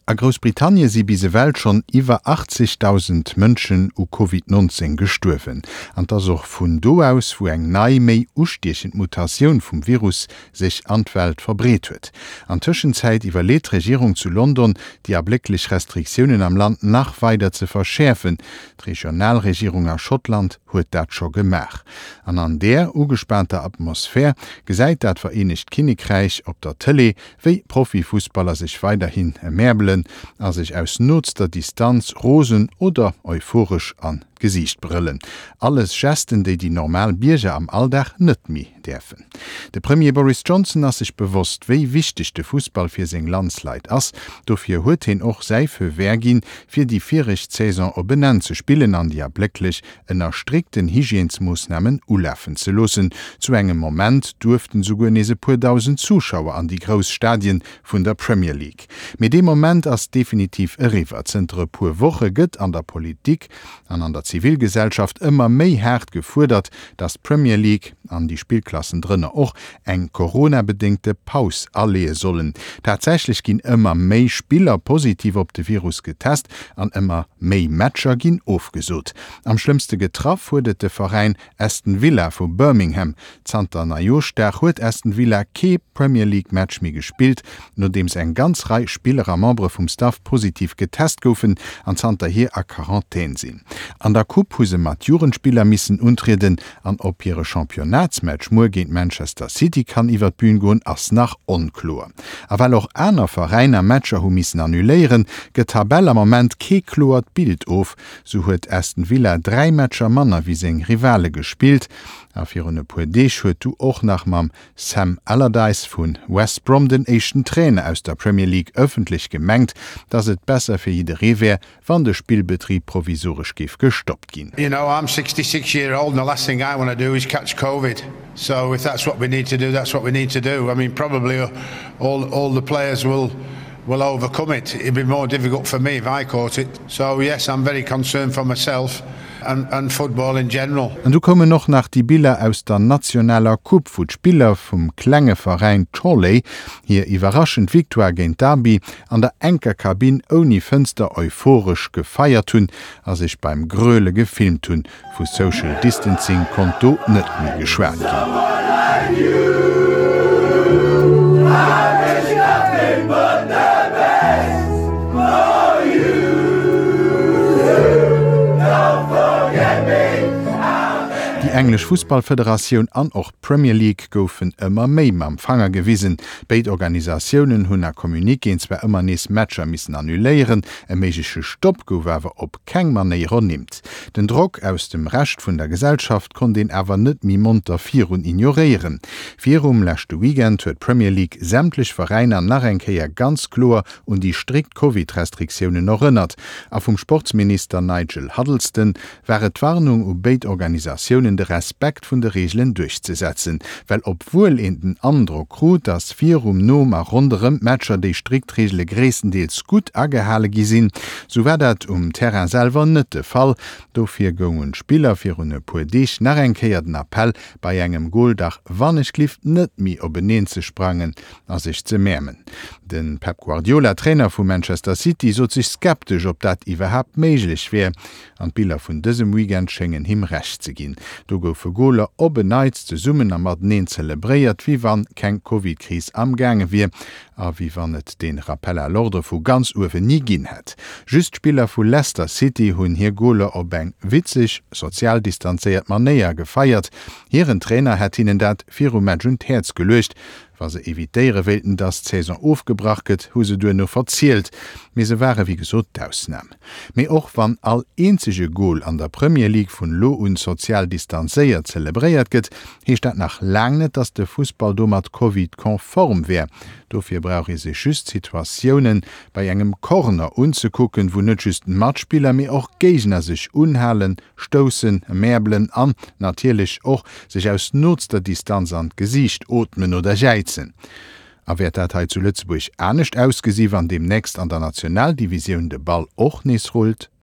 A Groussbritannie si bis ewell schonn iwwer 80.000 Mënschen u Covid 19 gestuerwen. An 't ass och vun do aus, wou eng nei, méi ustiechend Mutatioun vum Virus sech an d'Welt verbreet huet. An Tëschenzäit iwwerleet d'Regierung zu London, déi ablécklech Restriktiounen am Land nach weider ze verschäerfen. D'Regionalregierung a Schottland huet dat scho gemaach. An an där ugespaanter Atmosphär gesäit dat Vereenegt Kinnekräich op der Tëlee, wéi Profifussballer sech weiderhin emäerbelen a sech aus nootster Distanz rosen oder euphoresch an d'Gesiicht brëllen. Alles Gesten, déi déi normal Bierger am Alldag net méi däerfen. De Premier Boris Johnson ass sech bewosst, wéi wichteg de Fussball fir seng Landsleit ass. Dofir huet heen och säi Feu vert ginn, fir déi viregt Saison op en Enn ze spillen an déi ablécklech ënner strikten Hygiènesmoossnamen ulafen ze loossen. Zu engem Moment duerften souguer nees e puer dausend Zuschauer an déi grouss Stadien vun der Premier League. Mee dee Moment ass definitiv eriwwer. Zënter e puer Woche gëtt an der Politik an an der Zivilgesellschaft ëmmer méi haart gefuerdert, datt d'Premier League, an déi Spillklassen drënner och, eng Corona-bedéngte Paus aleeë sollen. Tatsächlech ginn ëmmer méi Spiller positiv op de Virus getest an ëmmer méi Matcher ginn ofgesot. Am schlëmmste getraff huet et de Veräin Aston Villa vu Birmingham. Zanter Neijooschdag huet Aston Villa kee Premier League Match méi gespillt, nodeems eng ganz Rei Spiller a Membere vum Staff positiv getest goufen an zanterhier a Quarantän sinn. An der Coupe hu se mat Jugendspiller missen untrieden an ob hire Championnatsmatch muer géint Manchester City kann iwwer d'Bün goen, ass nach onkloer. A well och aner Veräiner Matcher hu missen annuléieren, gëtt d'Tabell am Moment kee kloert Bild of. Sou huet Aston Villa 3 Matcher manner wéi seng Rivale gespillt a virun e puer Deeg huet du och nach mam Sam Allardyce vu West Brom den éischten Trainer aus der Premier League ëffentlech gemengt, datt et besser fir jidderee wär, wann de Spillbetrib provisoresch géif gestoppt ginn. You know, I'm 66 year old and the last thing I want to do is catch Covid. So if that's what we need to do, that's what we need to do. I mean, probably all, all the players will will overcome it. It'd be more difficult for me if I caught it. So yes, I'm very concerned for myself and, and football in general. An du koumen och nach déi Biller aus der nationaler Coupe, wou d'Spiller vum klenge Veräin Chorley hir iwwerraschend Victoire géint Derby an der enker Kabinn ouni Fënster euphoresch gefeiert hunn a sech beim Gröle gefilmt hunn. Vu Social Distancing konnt do net méi geschwat ginn. Déi englesch Fussballfederatioun an och d'Premier League goufen ëmmer méi mam Fanger gewisen. Béid Organisatiounen hunn a Communiquéen zwar ëmmer nees Matcher missen annuléieren, e méigleche Stopp gouf awer op keng Manéier ernimmt. Den Drock aus dem Rescht vun der Gesellschaft konnt een awer net méi monter virun ignoréieren. Virum leschte Weekend huet d'Premier League sämtlech Veräiner nach eng Kéier ganz kloer un déi strikt Covid-Restriktiounen erënnert a vum Sportsminister Nigel Huddleston war et d'Warnung u béid Organisatiounen de Respekt vun de Reegelen duerchzesetzen, well obwuel een den Androck krut, datt virum, nom a ronderëm d'Matcher déi strikt Reegele gréisstendeels gutt agehale gi sinn, sou war dat um Terrain selwer net de Fall. Dofir goung un d'Spiller virun e puer Deeg nach eng Kéier den Appell, bei engem Gol dach wannechglift net méi openeen ze sprangen a sech ze mäermen. De Pep Guardiola, Trainer vu Manchester City, sot sech skeptesch, ob dat iwwerhaapt méiglech wär. An d'Biller vun dësem Weekend schéngen him Recht ze ginn. Do goufe Goler op en Neits zesummen a mateneen zelebréiert, wéi wann keng Covid-Kris amgaange wier a wéi wann et dee Rappel à l'ordre vu ganz uewen ni ginn hätt. Just d'Spiller vu Leicester City hunn hir Goler op eng witzeg, sozial distanzéiert Manéier gefeiert. Hiren Trainer hätt hinnen dat virum Match un d'Häerz geluecht. Wa se evitéiere wéilten, dass d'Saison ofgebrach gëtt, hu se duerno verzielt. Mee se ware wéi gesot d'Ausnam. Mee och wann all eenzege Gol an der Premier League vun elo un sozial distanzéiert zelebréiert gëtt, heescht dat nach laang net, dass de Fussball domat Covid-konform wär. Dofir brauch ee sech just d'Situatiounen bei engem Corner unzekucken, wou net just Matspiller, mee och Géigner sech unhalen, stoussen, mäerbelen an natierlech och sech aus nootster Distanz an d'Gesiicht ootmen oder jäizen. A wäert dat hei zu Lëtzebuerg anescht ausgesi wann deemnächst an der Nationaldivisioun de Ball och nees rullt?